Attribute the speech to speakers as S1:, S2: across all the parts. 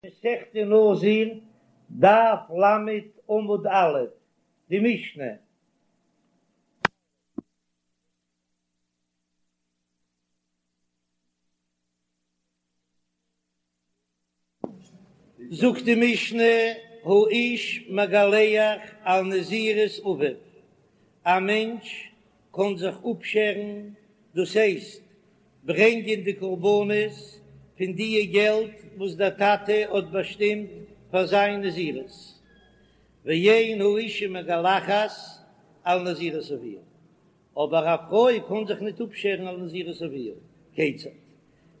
S1: מסכת נזיר, דף ל עמוד א', די משנה. זאגט די משנה, האיש מגלח על נזירות אביו, א מענטש קען זיך אפשערן, דאס הייסט ברענגען די קרבנות פון דיע געלט וואס דער טאטע האט באשטימט פאר זיין נזירות, ואין האשה מגלחת על נזירות אביה, אבער א פרוי קען זיך ניט אפשערן על נזירות אביה, כיצד?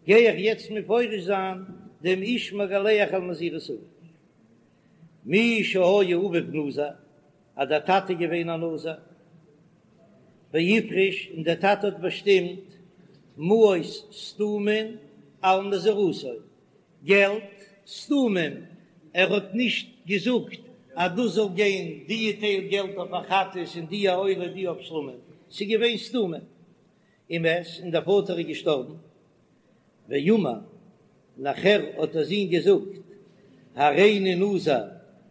S1: גיי איך יעצט מפרש זיין דעם איש מגלח על נזירות אביו. מי שהיה אביו נזיר, אז דער טאטע איז געווען א נזיר, והפריש, און דער טאטע האט באשטימט מעות סתומין על נזירותו, געלט סתומים, ער האט נישט געזאגט אז דאס זאל גיין די טייל געלט אויף א חטאת און די א עולה די אויף שלמים, ס'איז געווען סתומים, ומת, און דער פאטער איז געשטארבן, ואמר, נאכער האט דער זון געזאגט, הריני נזיר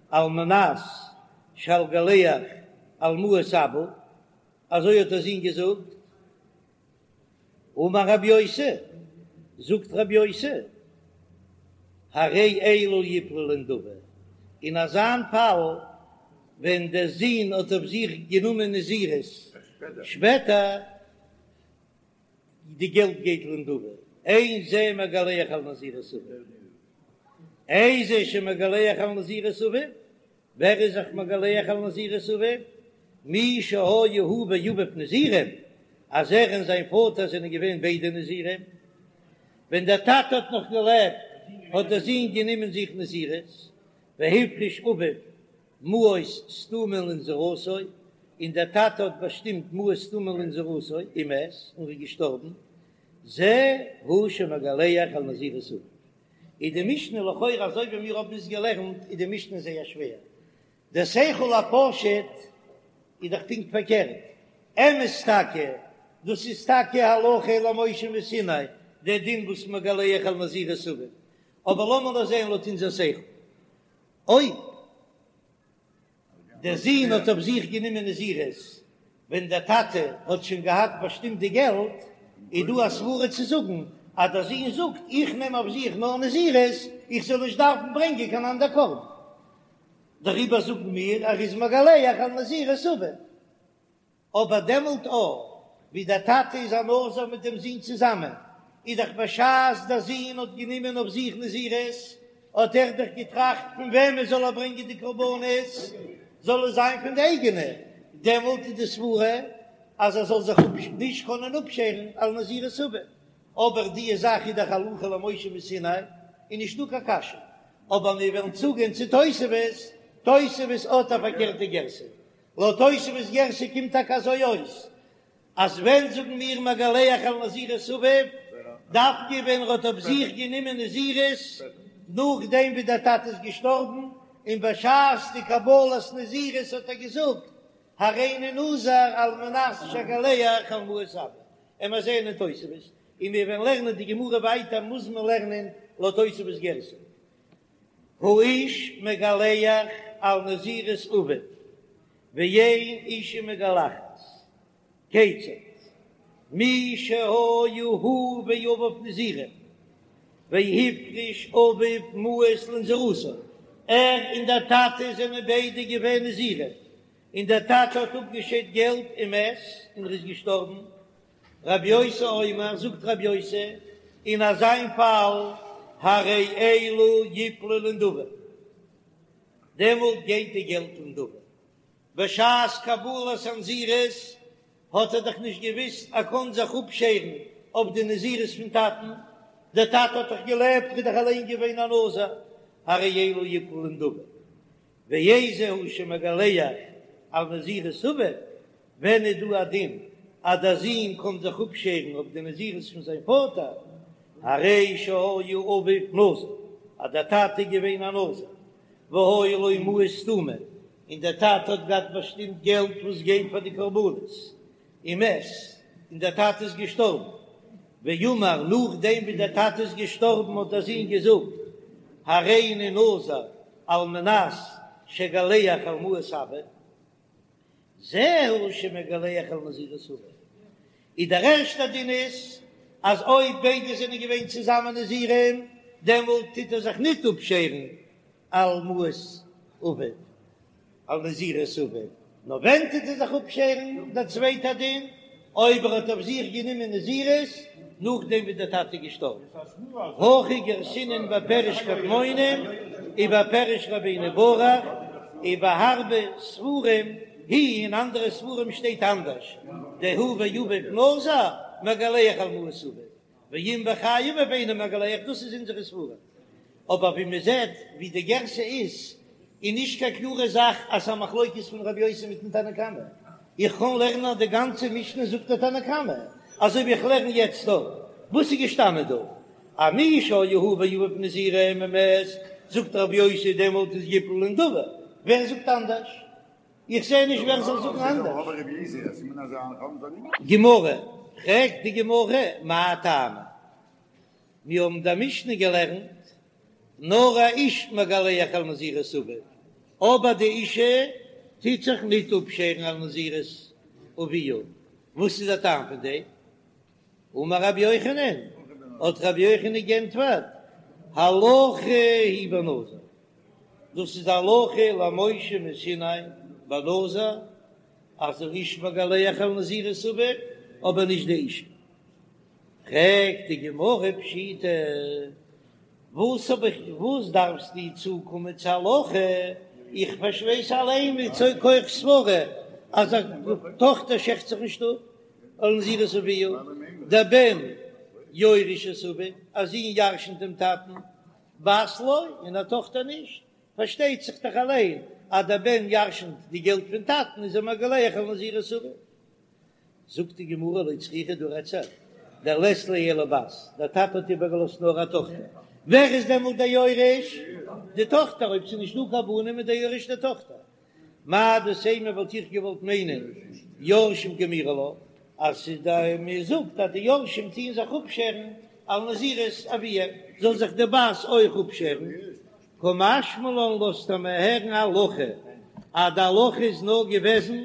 S1: על מנת שאגלח על מעות אבא, אזוי האט דער זון געזאגט, אמר רבי יוסי, זאגט רבי יוסי, הרי אלו יפלו לנדבה, אין אזאן פאל ווען דער זון האט אויף זיך גענומען נזירות שפעטער, די געלט גייט לנדבה, אין זה מגלח על נזירות אביו, איזהו שמגלח על נזירות אביו, ווער איז זיך מגלח על נזירות אביו? מי שהיה הוא ואביו נזירים, אז ער און זיין פאטער זענען געווען ביידע נזירים, ווען דער טאטע האט נאך געלעבט האט דער זון גענומען זיך נזירות, והפריש אביו מעות סתומין לנזירותו, און דער טאטע האט באשטימט מעות סתומין לנזירותו, ומת, און איז געשטארבן, זה הוא שמגלח על נזירות אביו. איז די משנה לכאורה אזוי ווי מיר האבן עס געלערנט איז די משנה זייער שווער, דער שכל הפשוט איז דאך פונקט פארקערט, אמת טאקע, דאס איז טאקע הלכה למשה מסיני, דער דין וואס מגלח על נזירות אביו, אבער לאמיר נאר זען לויט אונזער שכל, אויב דער זון האט אויף זיך גענומען נזירות ווען דער טאטע האט שוין געהאט באשטימט די געלט, איז דא א סברה צו זאגן אז דער זון זאגט איך נעם אויף זיך נאר נזירות איך זאל נישט דארפן ברענגען קיין אנדער קרבן, דעריבער זאגן מיר ער איז מגלח על נזירות אביו. אבער דעמאלט אויך ווי דער טאטע איז א נזיר מיט דעם זון צוזאמען, איז דאך בשעת דער זון האט גענומען אויף זיך נזירות, האט ער דאך געטראכט פון וועמען זאל ער ברענגען די קרבנות, זאל עס זיין פון די אייגענע, דעמאלט איז די סברה אז ער זאל זיך נישט קענען אפשערן על נזירות אביו, אבער די זאך איז דאך הלכה למשה מסיני, איז נישטא קיין קשיא, אבער מיר וועלן צוגיין צו תוספות, תוספות האט א פארקערטע גירסא, לויט תוספות גירסא קומט טאקע אזוי אויס, אז ווען זאגן מיר מגלח על נזירות אביו, דווקא ווען ער האט אויף זיך גענומען נזירות נאכדעם ווי דער טאטע איז געשטארבן, און בשעת די קבלת נזירות האט ער געזאגט הריני נזיר על מנת שאגלח על מעות אבא, און מיר זעען אין תוספות, און מיר וועלן לערנען די גמרא ווייטער מוז מען לערנען לויט תוספות גירסא. האיש מגלח על נזירות אביו, ואין אישה מגלחת, כיצד? מי שהיה הוא ואביו נזירים, והפריש אביו מעות לנזירותו, ער און דער טאטע זענען ביידע געווען נזירים, און דער טאטע האט אפגעשיידט געלט ומת, און ער איז געשטארבן, רבי יוסי אומר, זאגט רבי יוסי, אין אזיין פאל, הרי אלו יפלו לנדבה, דעמאלט גייט די געלט לנדבה. בשעת קבלת הנזירות האט ער דאך נישט געוויסט ער קען זיך אפשערן אויף די נזירות פון טאטן, דער טאטע האט דאך געלעבט, ער איז דאך אליין געווען א נזיר, הרי אלו יפלו לנדבה. ואיזהו שמגלח על נזירות אביו, ווען איז דא א דין אז דער זון קען זיך אפשערן אויף די נזירות פון זיין פאטער, הרי שהיה אביו נזיר, אז דער טאטע איז געווען א נזיר, והיו לו מעות סתומים, און דער טאטע האט געהאט באשטימט געלט וואס גייט פאר די קרבנות, ומת, און דער טאטע איז געשטארבן, ואמר, נאכדעם ווי דער טאטע איז געשטארבן האט דער זון געזאגט. הריני נזיר על מנת שאגלח על מעות אבא, זהו שמגלח על נזירות אביו, איז דער ערשטער דין איז אז אויב ביידע זענען געווען צוזאמען נזירים דעמאלט טוט ער זיך ניט אפשערן על מעות אביו, על נזירות אביו, נאר ווען טוט ער זיך אפשערן, דער צווייטער דין, אויב ער האט אויף זיך גענומען נזירות נאכדעם ווי דער טאטע איז געשטארבן, הכי גרסינן בפירוש קדמונים ובפירוש רבינו ברוך, ובהרבה ספרים היא אין אנדערע ספרים שטייט אנדערש, דהוא ואביו נזיר מגלח על מעות אביו, ואם בחיי אביו אינו מגלח, דאס איז אונזערע ספרים. אבער ווי מען זעט ווי די גרסה איז, איז נישט קיין קלארע זאך אז ס'איז א מחלוקת פון רבי יוסי מיטן תנא קמא. איך קען לערנען אז די גאנצע משנה זאגט דער תנא קמא, אזוי ווי איך לערן יעצט דא. וואס איז געשטאנען דא? אז מי שהיו הוא ואביו נזירים ומת, זאגט רבי יוסי דעמאלט איז יפלו לנדבה. ווער זאגט אנדערש? איך זע נישט ווער זאל זאגן אנדערש. גמרא, פרעגט די גמרא, מאי טעמא? מיר האבן די משנה געלערנט, נאר א איש מגלח על נזירות אביו, אבער די אישה טוט זיך ניט אפשערן על נזירות אביה, וואס איז דער טעם פון דעם? אמר רבי יוחנן, האט רבי יוחנן גענטפערט, הלכה היא בנזיר, דאס איז הלכה למשה מסיני בנזיר, אז דער איש מגלח על נזירות אביו, אבער נישט די אישה. פרעגט די גמרא פשיטא, וואס האב איך, וואס דארפסטו צוקומען צו הלכה, איך ווייס אליין מכח סברא אז א טאכטער שערט זיך נישט אפ על נזירות אביה, דבן יורש את אביו, א זון ירשנט דעם טאטן, בת לא, און א טאכטער נישט, פארשטייט זיך דאך אליין אז דער בן ירשנט די געלט פון טאטן איז ער מגלח על נזירות אביו. זאגט די גמרא לא צריכא דא רעדט זיך דלית ליה אלא בת, דער טאטע האט איבערגעלאזט נאר א טאכטער, ווער איז דעמאלט דער יורש? די טאכטער, אויב ס'איז נישט דא קיין בנים איז דער יורש די טאכטער. מהו דתימא וואלט איך געוואלט מיינען יורשים קאמירי לה, אז ס'איז די מען זאגט אז די יורשים טוען זיך אפשערן על נזירות אביהם, זאל זיך די בת אויך אפשערן, קא משמע לן לאזט ער מיר הערן הלכה אז די הלכה איז נאר געוועזן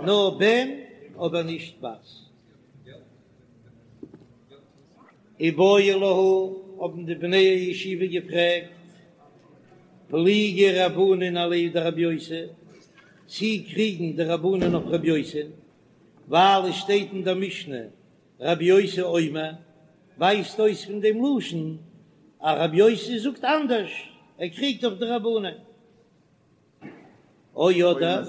S1: נאר בן אבער נישט בת. איבעיא להו האבן די בני הישיבה געפרעגט פליגי רבנן עליה דרבי יוסי, צי קריגן די רבנן אויף רבי יוסי, ווייל עס שטייט אין דער משנה רבי יוסי אומר, ווייזט אויס פון דעם לשון אז רבי יוסי זאגט אנדערש, ער קריגט אויף די רבנן. או אדער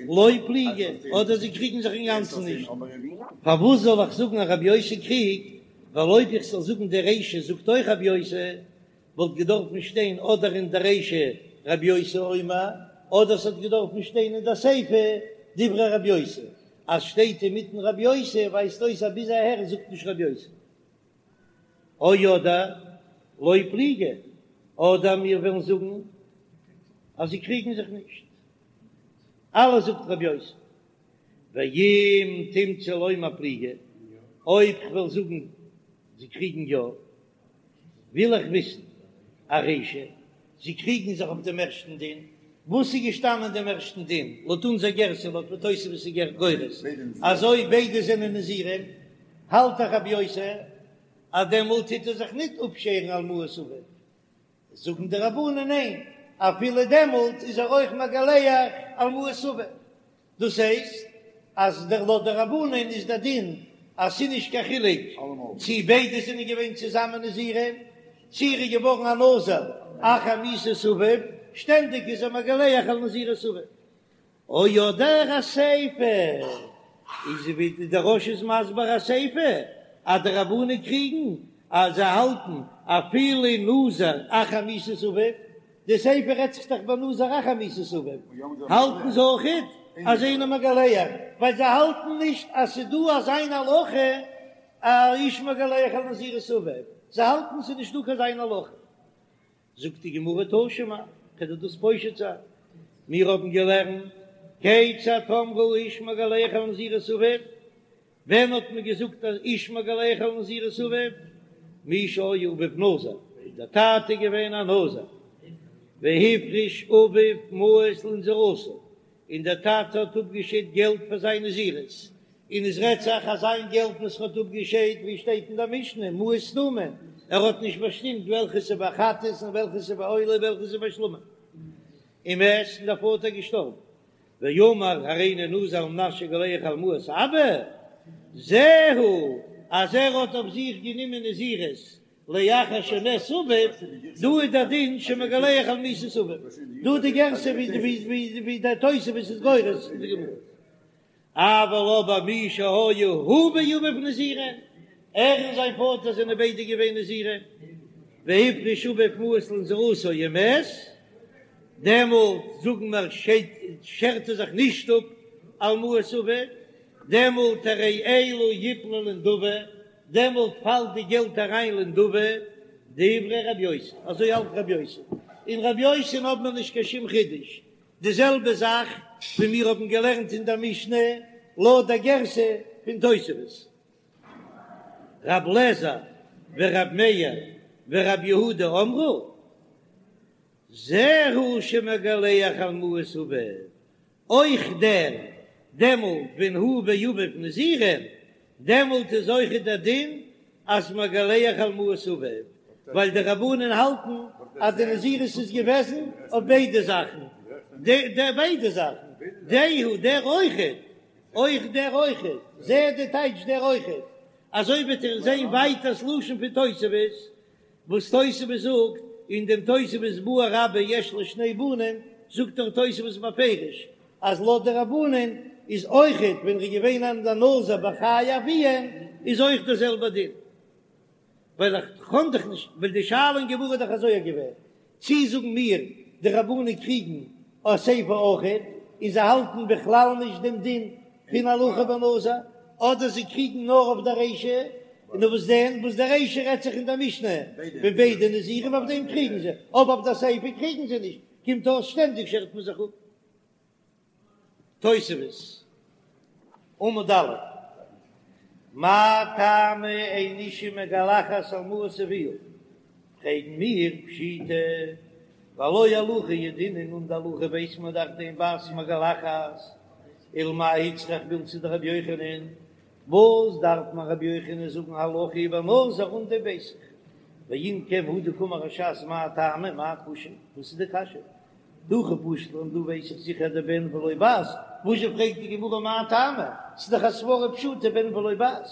S1: לא פליגי, אדער זיי קריגן זיך אינגאנצן נישט. פארוואס זאל איך זאגן אז רבי יוסי קריגט, ווייל אויב איך זאל זאגן די רישא זאגט אויך רבי יוסי, וואלט געדארפן שטיין אדער אין די רישא רבי יוסי אומר, אדער ס'האט געדארפן שטיין אין די סיפא דברי רבי יוסי, אז שטייט אינמיטן רבי יוסי ווייזט אויס אז ביז אהער זאגט נישט רבי יוסי. או אדער לא פליגי, אדער מיר וועלן זאגן אז זיי קריגן זיך נישט, אלעס זאגט רבי יוסי. ואם תמצא לומר פליגי, אויב כ'וועל זאגן זיי קריגן יא, וויל איך וויסן ארישא, זיי קריגן זיך אויף דעם ערשטן דין, וואס איז געשטאנען אין דעם ערשטן דין, לויט אונזער גרסה, לויט ווי תוספות איז גורס, אז אויב ביידע זענען נזירים, האלט דאך רבי יוסי אז דעמאלט טוט ער זיך ניט אפשערן על מעות אביו, זאגן די רבנן ניין, אפילו דעמאלט איז ער אויך מגלח על מעות אביו. דאס הייסט אז דער לויט די רבנן איז דער דין אז ס'איז נישט קיין חילוק צי ביידע זענען געווען צוזאמען נזירים, צי ער איז געווארן א נזיר אחר מיתת אביו, שטענדיג איז ער מגלח על נזירות אביו. או אדער אסיפא איז ווי דער רא"ש איז מסביר אסיפא אז די רבנן קריגן אז זיי האלטן אפילו נזיר אחר מיתת אביו, די סיפא רעדט זיך דאך ביי נזיר אחר מיתת אביו, האלטן זיי אויכעט אז אינו מגלח, ווייל זיי האלטן נישט אז ס'איז דא אזא איין הלכה אז האיש מגלח על נזירות אביו, זיי האלטן ס'איז נישט דא קיין אזא איין הלכה. זאגט די גמרא תא שמע, כדי דאס פושט זיין, מיר האבן געלערנט כיצד אמרו האיש מגלח על נזירות אביו, ווען האט מען געזאגט אז איש מגלח על נזירות אביו? מי שהיה אביו נזיר. דער טאטע איז געווען א נזיר, והפריש אביו מעות לנזירותו, און דער טאטע האט אפגעשיידט געלט פאר זיין נזירות, און עס רעדט זיך אז זיין געלט וואס ער האט אפגעשיידט, ווי שטייט אין דער משנה, מעות סתומים, ער האט נישט באשטימט וועלכע ס'איז ביי חטאת און וועלכע ס'איז ביי עולה און וועלכע ס'איז ביי שלמים. ומת, און דער פאטער איז געשטארבן. ואמר הריני נזיר על מנת שאגלח על מעות אבא, זהו, אז ער האט אויף זיך גענומען נזירות לאחר שמת אביו, דא איז דער דין שמגלח על מיתת אביו, דא די גרסה ווי דער תוספות איז גורס אין די גמרא. אבל אבער מי שהיה הוא ואביו נזירים, ער און זיין פאטער זענען ביידע געווען נזירים, והפריש אביו מעות לנזירותו ומת, דעמאלט זאגן מיר שערט ער זיך נישט אפ על מעות אביו, דעמאלט הרי אלו יפלו לנדבה, דעמאלט פאלט די געלט אריין לנדבה, דברי רבי יוסי, אזוי האלט רבי יוסי, אין רבי יוסי'ן האבן מיר נישט קיין שום חידוש, די זעלבע זאך ווי מיר האבן געלערנט אין דער משנה לויט דער גרסה פון תוספות. רב לעזער ורב מאיר ורב יהודה אמרו, זהו שמגלח על מעות אביו, אויך דער דעמאלט ווען הוא ואביו נזירים, דעמאלט איז אויך דער דין אז מגלח על מעות אביו, ווייל די רבנן האלטן אז די נזירות איז געוועזן אויף ביידע זאכן, די ביידע זאכן, דהו דער אויכעט, אויך דער אויכעט, זה די טייטש דער אויכעט, אזוי וועט איר זען ווייטער ס'לשון פון תוספות, וואס תוספות זאגט אין דעם תוספות בעי רבה יש לו שני בנים, זאגט דאך תוספות בפירוש אז לויט די רבנן איז אויכעט ווען ר'איז געווען א נזיר בחיי אביהם איז אויך דער זעלבער דין, ווייל איך קען דאך נישט, ווייל די שאלה אין גמרא איז דאך אזוי געווען, צי זאגן מיר די רבנן קריגן אסיפא אויכעט און זיי האלטן בכלל נישט דעם דין פון הלכה בנזיר, אדער זיי קריגן נאר אויף די רישא, און וואס דען וואס די רישא רעדט זיך אין דער משנה ווען ביידע נזירים אויף דעם קריגן זיי, אבער אויף די סיפא קריגן זיי נישט, קומט אויס שטענדיג שערט מען זיך אפ. תוספות, עמוד א', מאי טעמא אין אשה מגלחת על מעות אביה, פרעגן מיר פשיטא, והלא הלכה ידעינן און די הלכה ווייס מען דאך דאין בת מגלחת, ולמאי איצטריך מילתא דרבי יוחנן, וואס דארף מיר רבי יוחנן זאגן הלכה היא בנזיר אן דעם ווייס איך, ואם כן הא דקאמר הש"ס מאי טעמא מאי קושיא, וואס איז די קשיא? דהכי פשט לן דא ווייס איך זיכער דבן ולא בת, וואזשע פרעגט די גמרא מאי טעמא, ס'איז דאך א סברא פשוטה בן ולא בת,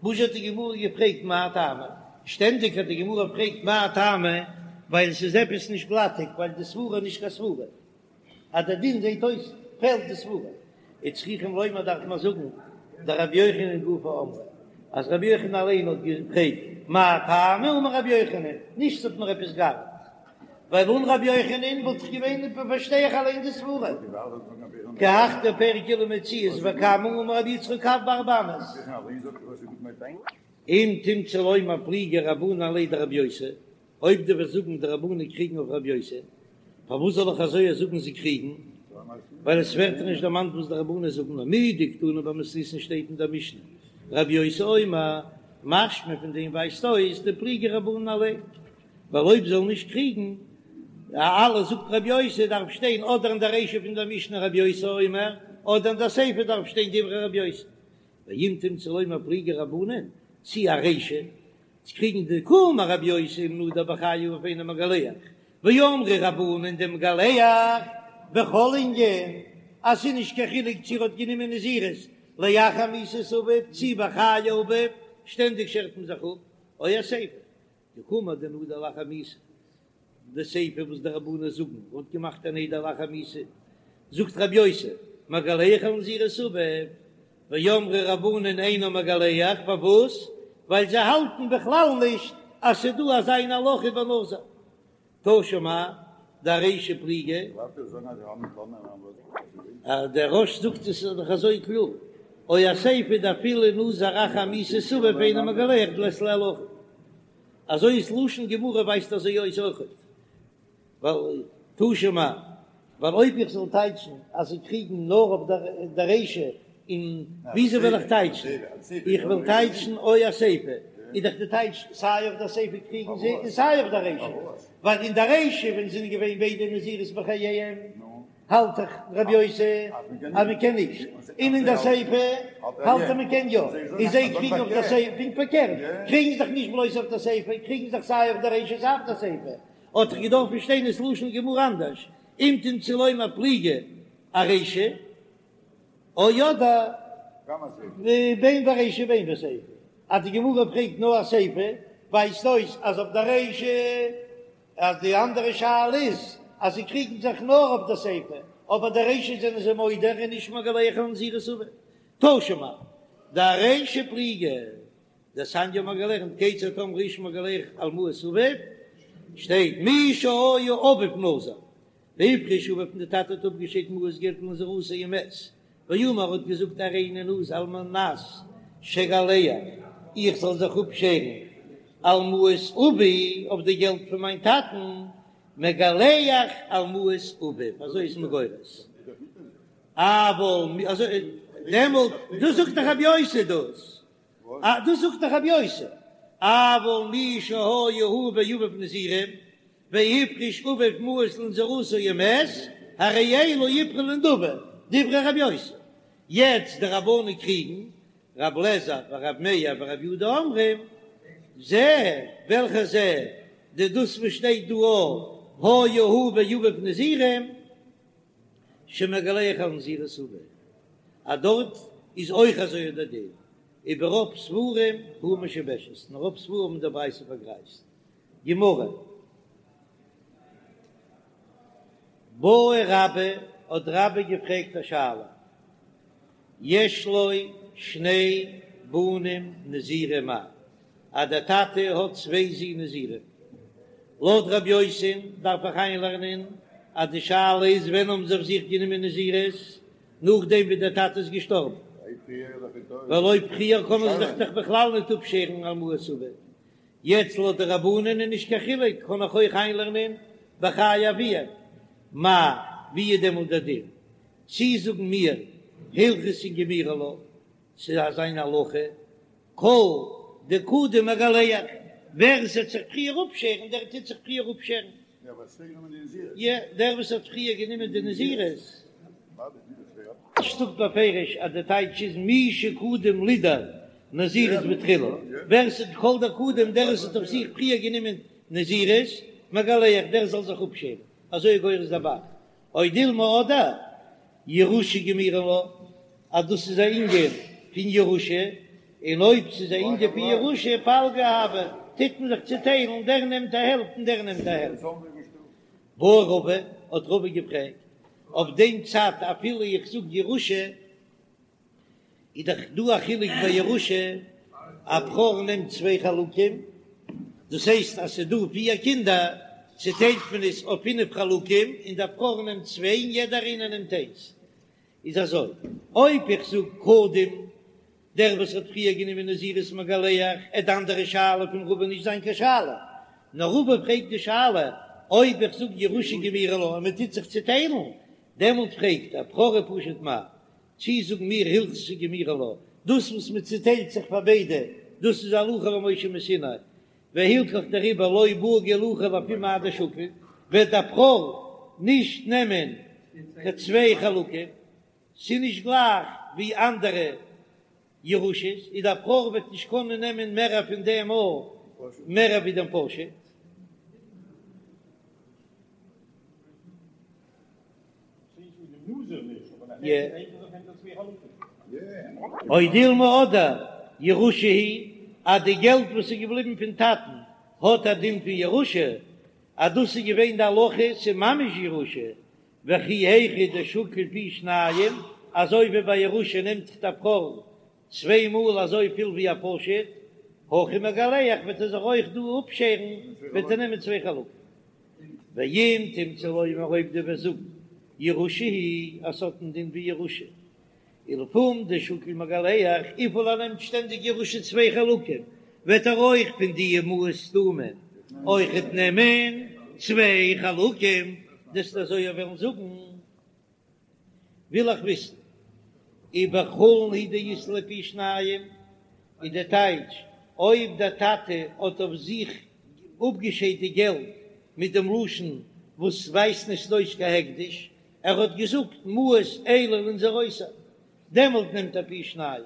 S1: וואזשע האט די גמרא געפרעגט מאי טעמא, שטענדיג אז די גמרא פרעגט מאי טעמא ווייל עס איז עפעס נישט גלאטיג ווייל די סברא איז נישט קיין סברא. אז דער דין זעט אויס פעלט די סברא, וצריכים לומר דארף מען זאגן דרבי יוחנן גופא אמרה, אז רבי יוחנן אליין האט געפרעגט מאי טעמא אמר רבי יוחנן, נישט ס'האט מיר עפעס געארט, ווייל אן רבי יוחנן וואלט איך געווען פארשטיי איך אליין די סברא, כי הך דפרק אלו מציאות וכמה אמר רבי יצחק קב בארבע אמות. אם תמצא לומר פליגי רבנן עליה דרבי יוסי, אויב דו וועסט זאגן די רבנן קריגן אויף רבי יוסי, פארוואס זאל איך אזוי זאגן זיי קריגן? ווייל עס ווערט נישט דערמאנט וואס די רבנן זאגן, נאר מדקתני במתניתין שטייט אין דער משנה רבי יוסי אומר, משמע פון דעם ווייזט אויס דפליגי רבנן עליה, ווייל אויב זאל נישט קריגן אלעס זאגט רבי יוסי דארף שטיין אדער אין דער רישא פון דער משנה רבי יוסי אומר, אדער אין דער סיפא דארף שטיין דברי רבי יוסי. ואם תמצא לומר פליגי רבנן, צי ארישא, צו קריגן דקאמר רבי יוסי אם נדר בחיי אביו אינו מגלח, ואמרי רבנן דמגלח בכל ענין, אז ס'איז נישט קיין חילוק צו ער האט גענומען נזירות לאחר מיתת אביו צי בחיי אביו, שטענדיג שערט מען זיך אפ, או אסיפא, דקאמר דנדר לאחר מיתה, די סיפא וואס די רבנן זאגן האט געמאכט א נדר לאחר מיתה, זאגט רבי יוסי, מגלח על נזירות אביו, ואמרי רבנן אינו מגלח, פארוואס? ווייל זיי האלטן בכלל נישט אז ס'איז דא אזא איין הלכה בנזיר. תא שמע, דארישא פליגי. דער רא"ש זאגט עס איז דאך אזוי קלאר, או אסיפא דאפילו נזר אחר מיתת אביו אינו מגלח דלית ליה הלכה. אזוי איז לשון גמרא ווייזט אזוי אויס אויכעט, ווייל תא שמע, ווייל אויב איך זאל טייטשן אז זיי קריגן נאר אויף דער רישא, און וויאזוי וועל איך טייטשן? איך וועל טייטשן או אסיפא. איז דאך די טייטש סיי אויף דער סיפא קריגן זיי און סיי אויף דער רישא, ווייל אין דער רישא ווען זענען געווען ביידע נזירות בחייהם האלט דאך רבי יוסי אז מען קען נישט, און אין דער סיפא האלט ער מען קען יא, און זיי קריגן אויף דער סיפא, פונקט פארקערט, קריגן זיך נישט בלויז אויף דער סיפא, קריגן זיך סיי אויף דער רישא סיי אויף דער סיפא, האט דאך געדארפן שטיין דאס לשון גמרא אנדערש, אם תמצא לומר פליגי ארישא. או אדער בין ברישא בין בסיפא, אז די גמרא פרעגט נאר אסיפא, ווייזט אויס אז אויף די רישא, אז די אנדערע שאלה איז אז זיי קריגן זיך נאר אויף די סיפא, אבער די רישא זענען זיי מודה און נישט מגלח על נזירות אביו. תא שמע, דארישא פליגי, דתניא האבן מיר געלערנט כיצד אמרו האיש מגלח על מעות אביו, שטייט מי שהיה אביו נזיר, והפריש אביו און די טאטע האט אפגעשיידט מעות געלט לנזירותו ומת, ואמר האט געזאגט הריני נזיר על מנת שאגלח איך זאל זיך אפשערן על מעות אבי אויף די געלט פון מיין טאטן, מגלח על מעות אביו, אזוי איז מען גורס. אבל אזוי דעמאלט דאס זאגט דאך רבי יוסי דאס דאס זאגט דאך רבי יוסי אבל מי שהיה הוא ואביו נזירים והפריש אביו מעות לנזירותו ומת, הרי אלו יפרעו לנדבה, דברי רבי יוסי. יעצט די רבנן קריגן, רב לעזער ורב מאיר ורב יהודה אומרים, זה, וועלכע זה, די דאס וואס שטייט דא היה הוא ואביו נזירים, שמגלח על נזירות אביו, אז דארט איז אויך אזוי דער דין, וברוב ספרים היא משובשת, אין רוב ספרים האבן די ברייתא פארגרייזט. גמרא. בעי רבה, האט רבה געפרעגט א שאלה, יש לו שני בנים נזירים מהו, אז דער טאטע האט צוויי זין נזירים, לויט רבי יוסי'ן דארף איך איינלערנען אז די שאלה איז ווען האבן זיי אויף זיך גענומען נזירות, נאכדעם ווי דער טאטע איז געשטארבן, ווייל אויב פריער קענען זיי זיך דאך בכלל ניט אפשערן על מעות אביו, יעצט לויט די רבנן איז נישט קיין חילוק, קען איך אויך איינלערנען בחיי אביהם, מהו, ווי איז דעמאלט דער דין? צי זאגן מיר הלכתא גמירי לה, ס'איז אזא מין הלכה, כל דקדים מגלח, ווער עס וועט זיך פריער אפשערן דער טוט זיך פריער אפשערן. יא, דער וואס האט פריער גענומען די נזירות. רש"י זאגט בפירוש אז די טייטש איז מי שקדם לידור נזירות בתחילה, ווער ס'האט כל דקדים דער וואס האט אויף זיך פריער גענומען נזירות, מגלח דער זאל זיך אפשערן, אזוי איז גורס דער ב"ח, או דילמא אדער ירושה גמירי לה, אז דאס איז א ענין פון ירושה, און אויב ס'איז א ענין פון ירושה פלגא הוי, טוט מען זיך צוטיילן, דער נעמט א העלפט און דער נעמט א העלפט. בעי רבא, האט רבא געפרעגט, אויף דעם צד אפילו איך זאג ירושה, איז דאך דא א חילוק ביי ירושה, א בכור נעמט צוויי חלקים, דאס הייסט אז ס'איז דא פיר קינדער, צוטיילט מען עס אויף פינף חלקים, און דער בכור נעמט צוויי און יעדער איינער נעמט איינס. איז אזוי, אויב איך זאג קודם דער וואס האט פריער גענומען נזירות מגלח, עט די אנדערע שאלה פון רבא נישט זיין קיין שאלה, נאר רבא פרעגט די שאלה אויב איך זאג ירושה גמירי לה און מען טוט זיך צוטיילן, דעמאלט פרעגט ער בכור ופשוט מהו, צי זאגן מיר הלכתא גמירי לה, דאס וואס מען צוטיילט זיך פאר ביידע, דאס איז הלכה למשה מסיני, והלכך דעריבער לא בעי גלוחי לפום מאי דשקיל, וועט דער בכור נישט נעמען קיין צוויי חלקים, ס'איז נישט גלייך ווי אנדערע ירושות, איז דער בכור וועט נישט קענען נעמען מערער פון דעם או מערער ווי דעם פשוט. או דילמא אדער ירושה היא, אז די געלט וואס איז געבליבן פון טאטן האט א דין פון ירושה, אז דאס איז געווען די הלכה, ס'איז ממש ירושה, וכי היכי דשקיל פי שניים, אזוי ווי ביי ירושה נעמט זיך דער בכור צוויי מאל אזוי פיל ווי א פשוט, הכא מגלח וועט ער זיך אויך דא אפשערן, וועט ער נעמען צוויי חלקים. ואם תמצא לומר אויב דו וועסט זאגן ירושה היא אז ס'האט א דין ווי ירושה, ולפום דשקיל מגלח, וויפיל ער נעמט שטענדיג ירושה צוויי חלקים, וועט ער אויך פון די מעות סתומים אויכעט נעמען צוויי חלקים, דו'סט אזוי וועלן זאגן. וויל איך וויסן ובחולין הוא דאית ליה פי שניים, איז די טייטש. אויב דער טאטע האט אויף זיך אפגעשיידט די געלט מיט דעם לשון וואס ווייזט נישט אויס קיין הקדש, ער האט געזאגט מעות אלו לנזירותי, דעמאלט נעמט ער פי שניים.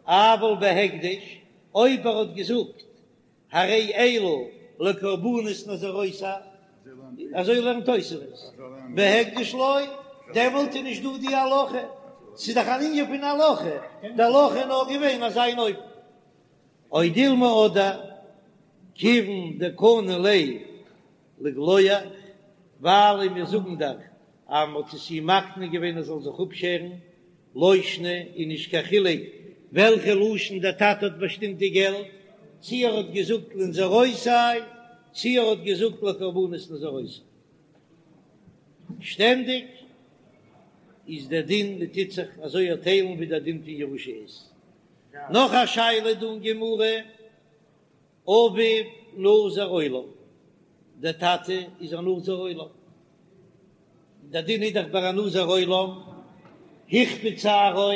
S1: אבל בהקדש, אויב ער האט געזאגט הרי אלו לקרבנות נזירותי, אזוי לערנט תוספות, בהקדש לא, דעמאלט איז נישט דא די הלכה, ס'איז דאך אן ענין פון הלכה, די הלכה איז נאר געווען אזא איין אופן. או דילמא אדער כיוון דקני ליה לגלוח, ווייל מיר זאגן דאך אז מ'האט עס אים מקנה געווען ער זאל זיך אפשערן, לא שנא איז נישט קיין חילוק וועלכע לשון דער טאטע האט באשטימט די געלט, צי ער האט געזאגט לנזירותי צי ער האט געזאגט לקרבנות נזירותי. שטענדיג איז דער דין מען טוט זיך אזוי טיילן ווי דער דין פון ירושה איז. נאך א שאלה דא אין גמרא, אביו נזיר עולם, דער טאטע איז א נזיר עולם, דער דין איז דאך ביי א נזיר עולם, הכביד שערו,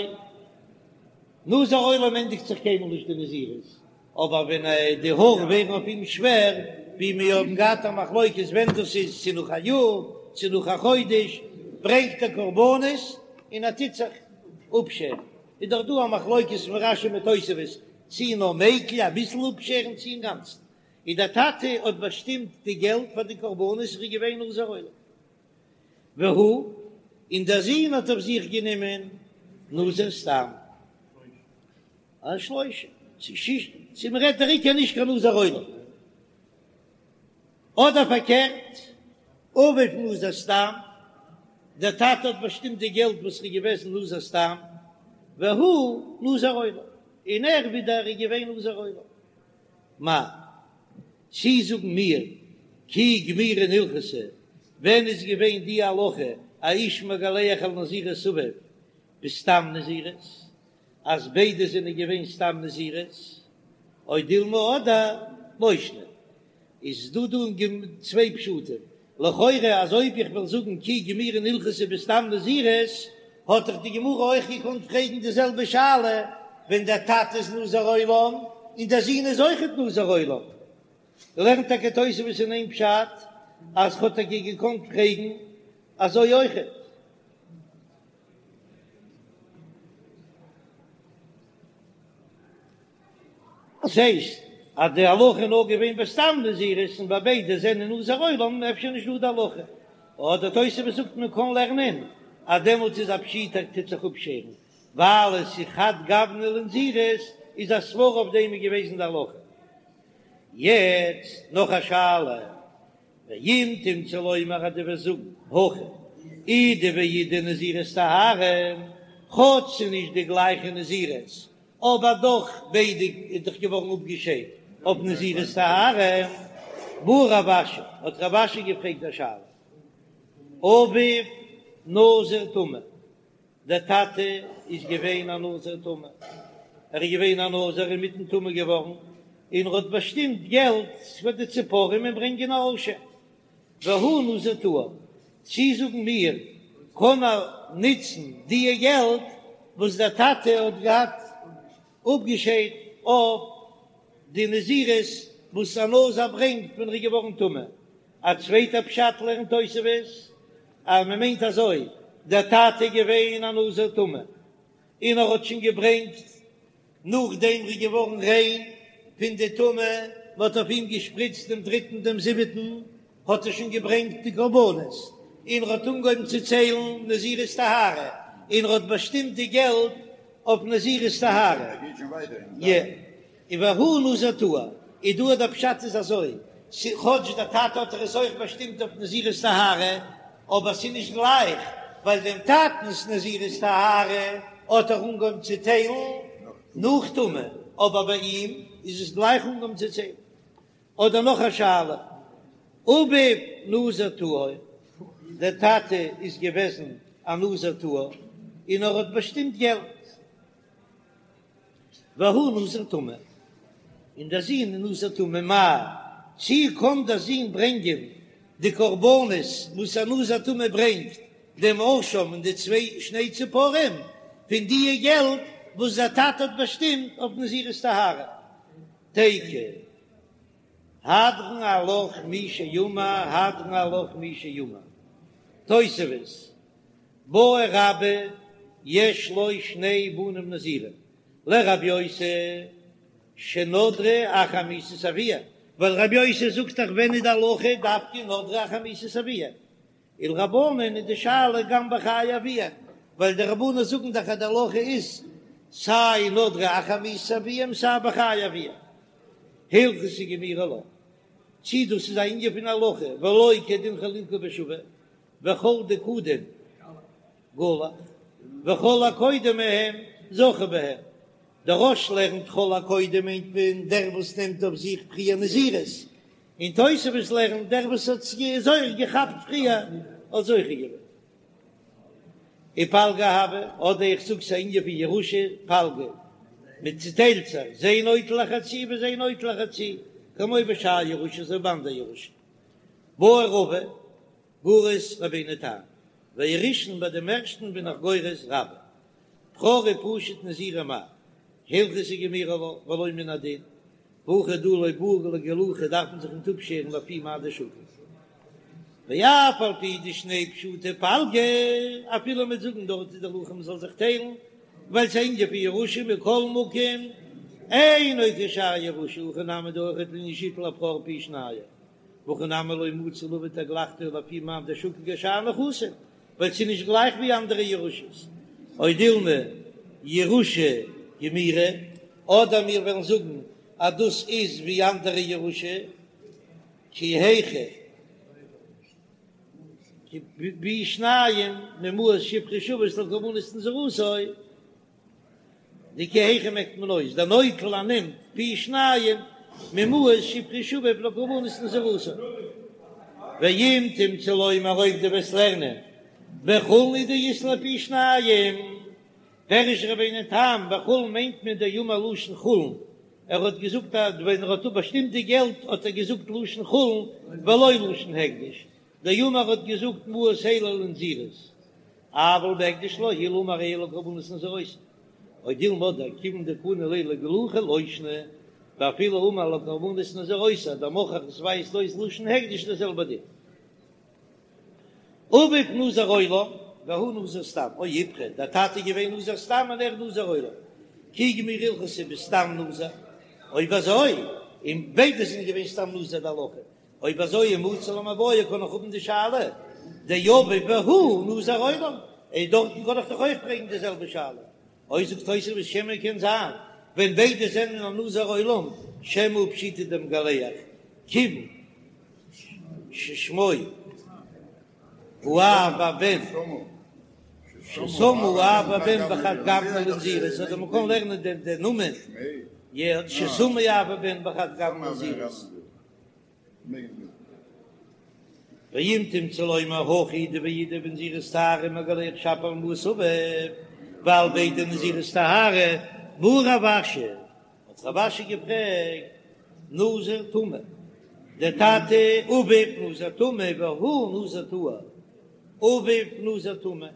S1: נזיר עולם ענדיגט זיך קיינמאל נישט די נזירות, אבער ווען די האר ווערן אויף אים שווער, ווי מיר האבן געהאט א מחלוקת ווען דאס איז, צו נאך א יאר, צו נאך א חודש, ברענגט ער קרבנות און ער טוט זיך אפשערן, איז דאך דא א מחלוקת פון רש"י מיט תוספות, צי נאר מיקל אביסל אפשערן צי אינגאנצן, און דער טאטע האט באשטימט די געלט פאר די קרבנות איז געווען נזיר עולם. והוא, און דער זון האט אויף זיך גענומען נזיר סתם. א שלושה, צו שישה, צו מ'רעדט דער עיקר נישט קיין נזיר עולם. אדער פארקערט, אביו נזיר סתם, דער טאטע האט באשטימט די געלט וואס איז געוועזן נזיר סתם, והוא נזיר עולם, און ער ווידער איז געווען נזיר עולם. מאי, צי זאגן מיר כי גמירין הלכתא, ווען איז געווען די הלכה האיש מגלח על נזירות אביו בסתם נזירות, אז ביידע זענען געווען סתם נזירות, או דילמא אדער לא שנא, איז דא דא אין גמ' צוויי פשטים, לכאורה אז אויב איך וועל זאגן כי גמירין הלכתא בסתם נזירות, האט דאך די גמרא אויך געקאנט פרעגן די זעלבע שאלה ווען דער טאטע איז נזיר עולם און דער זון איז אויכעט נזיר עולם. לערנט טאקע תוספות אין איין פשט אז כ'האט טאקע געקאנט פרעגן אזוי אויכעט. דאס הייסט אז די הלכה איז נאר געווען בסתם נזירות און ביי ביידע זענען נזיר עולם אפשר נישט דא די הלכה, אדער תוספות זאגט מען קען לערנען אז דעמאלטס איז א פשיטא טוט זיך אפשערן ווייל עס איז חד גוונא לנזירות איז א סברא אויף דעם איז געוועזן די הלכה. יעצט נאך א שאלה, ואם תמצא לומר אז דו וועסט זאגן הכא אידי ואידי נזירות טהרה, כאטש ס'איז נישט די גלייכע נזירות אבער דאך ביידע איז דאך געווארן אפגעשיידט אויף נזירות טהרה. בעי רב אשי, האט רב אשי געפרעגט א שאלה, אביו נזיר טמא, דער טאטע איז געווען א נזיר טמא, ער איז געווען א נזיר אינמיטן טמא געווארן, און ער האט באשטימט געלט פאר די ציפורים און ברענגען א אשם. והוא נזיר טהור, צי זאגן מיר קען ער נוצן דיע געלט וואס דער טאטע האט געהאט אפגעשיידט אויף די נזירות וואס א נזיר ברענגט ווען ער איז געווארן טמא. א צווייטע פשט לערנט תוספות אז מען מיינט אזוי, דער טאטע איז געווען א נזיר טמא און ער האט שוין געברענגט נאכדעם ער איז געווארן ריין פון די טומאה, מען האט אויף אים געשפריצט דעם דריטן דעם זיבעטן, האט ער שוין געברענגט די קרבנות, און ער האט אנגעהויבן צו ציילן נזירות טהרה, און ער האט באשטימט די געלט אויף נזירות טהרה. און והוא נזיר טהור, איז דא דער פשט איז אזוי, כאטש דער טאטע האט ער עס אויך באשטימט אויף נזירות טהרה, אבער ס'איז נישט גלייך, ווייל דעם טאטנ'ס נזירות טהרה האט ער אנגעהויבן צו טיילן נאך טומאה, אבער ביי אים איז עס גלייך אנגעהויבן צו ציילן. אדער נאך א שאלה, אביו נזיר טהור, דער טאטע איז געוועזן א נזיר טהור און ער האט באשטימט געלט, והוא נזיר טמא, און דער זון איז נזיר טמא, מאי, צי קען דער זון ברענגען די קרבנות וואס א נזיר טמא ברענגט, דעם אשם און די צוויי שני ציפורים, פון דיע געלט וואס דער טאטע האט באשטימט אויף נזירות טהרה? תיקו, הדרן עלך מי שאמר, הדרן עלך מי שאמר. תוספות, בעי רבה יש לו שני בנים נזירים, לרבי יוסי שנדרו אחר מיתת אביהם, ווייל רבי יוסי זאגט דאך ווען איז די הלכה דווקא נדרו אחר מיתת אביהם, ולרבנן איז די שאלה גם בחיי אביהם, ווייל די רבנן זאגן דאך אז די הלכה איז סיי נדרו אחר מיתת אביהם סיי בחיי אביהם. הלכתא גמירי לה, צי דאס איז א ענין פון הלכה ולא כדין חלוקה בשווה, וכל דקדים גלח, וכל הקודם מהם זכה בהם, דער רא"ש לערנט כל הקודם מיינט מען דער וואס נעמט אויף זיך פריער נזירות, און תוספות לערנט דער וואס האט זיך געכאפט פריער האט זוכה געווען. ופלגא הוי, אדער איך זאג ס'איז א ענין פון ירושה, פלגא, מען צוטיילט זיך, זה נוטל החצי וזה נוטל החצי, כמו בשאר ירושה אזוי ביי אנדער ירושה. בעי רבא, גורס רבינו תם, והראשון ביי דעם ערשטן בין איך גורס רבה. בכור ופשוט נזירים מאי, הלכתא גמירי לה ולא מן הדין, והכא דא לא בעי לגלוחי דארף מען זיך ניט אפשערן לפי מאי דשקיל. ואף על פי דשני פשוטי פלגא, אפילו מ'וועט זאגן דארט איז די הלכה מ'זאל זיך טיילן, ווייל ס'איז אן ענין פון ירושה מכל מקום, אינו כשאר ירושה, הכא נמי דא אויכעט לענין שיטול הבכור פי שניים, והכא נמי לא מצי להביא תגלחתו לפי מאן דשקיל כשאר נכסים, ווייל ס'איז נישט גלייך ווי אנדערע ירושות, או דילמא ירושה גמירי, אדער מיר וועלן זאגן אז דאס איז ווי אנדערע ירושה, כי היכי פי שניים ממעות שהפריש אביו לקרבנות נזירותו. די כי היכי מעקט מען אויס דנוטל ער נעמט פי שניים ממעות שהפריש אביו לקרבנות נזירותו. ואם תמצא לומר אויב דו וועסט לערנען בחולין הוא דאית ליה פי שניים, פירש רבינו תם בחולין מיינט מען דאמר לשון חולין, ער האט געזאגט אז ווען ער האט באשטימט די געלט האט ער געזאגט לשון חולין ולא לשון הקדש, דאמר האט געזאגט מעות אלו לנזירות, אבל בהקדש לא, אילו אמר אלו לקרבנות נזירותו, או דילמא דכיון דקני ליה לגלוחי לא שנא, ואפילו אמר לקרבנות נזירותו, דמוכח עס ווייזט אויס לשון הקדש די זעלבע דין. אביו נזיר עולם והוא נזיר סתם, או איפכא, דער טאטע איז געווען נזיר סתם און ער נזיר עולם, כי גמירי הלכתא בסתם נזיר, אויב אזוי, און ביידע זענען געווען סתם נזיר די הלכה, אויב אזוי ומצי למיבעיא קען איך האבן די שאלה דאביו והוא נזיר עולם, און דארטן קען איך דאך אויך פרעגן די זעלבע שאלה. אויב זאגט תוספות שמא קען זיין ווען ביידע זענען א נזיר עולם שמא פשיטא דמגלח כיוון ששמו האב והבן ששמו האב והבן בחד גוונא לנזירות אדער מ'קען לערנען דעם נאמען ששמו האב והבן בחד גוונא לנזירות. ואם תמצא לומר הכא אידי ואידי בנזירות טהרה מגלח שפיר על מעות אביו, ווייל ביידע נזירות טהרה, בעי רב אשי, האט רב אשי געפרעגט, נזיר טמא, דער טאטע אביו נזיר טמא והוא נזיר טהור, אביו נזיר טמא,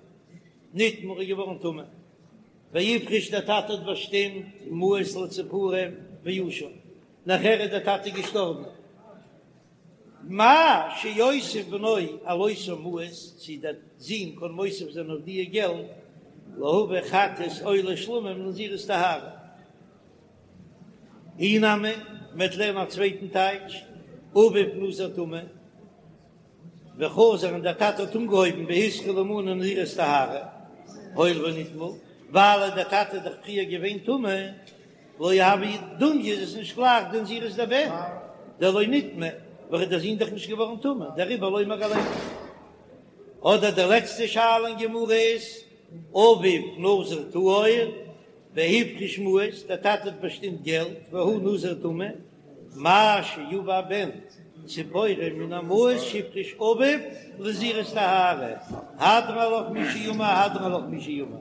S1: נטמא איז געווארן טמא, והפריש דער טאטע האט באשטימט מעות לציפורים ואשם. נאכער איז דער טאטע געשטארבן, מהו שיוסיף בנו על אותן מעות, צי דער זון קען מוסיף זיין אויף דיע געלט, להביא חטאת עולה שלמים לנזירות טהרה. אי נמי, מ'וועט לערנען א צווייטן טייטש, אביו נזיר טמא, וחזר און דער טאטע האט אנגעהויבן והתחיל למנות נזירות טהרה, הואיל ונטמא, ווייל דער טאטע איז דאך פריער געווען טמא, לא הוי דומיא איז עס נישט גלייך די נזירות דבן דלא נטמא, ווייל דער זון דאך נישט געווארן טמא, דעריבער לא מגלח. אדער די לעצטע שאלה אין גמרא איז, אביו נזיר טהור והפריש מעות, דער טאטע האט באשטימט געלט, והוא נזיר טמא, מהו שיביא הבן ציפורים מן המעות שהפריש אביו לנזירות טהרה, הדרן עלך מי שאמר הדרן עלך מי שאמר.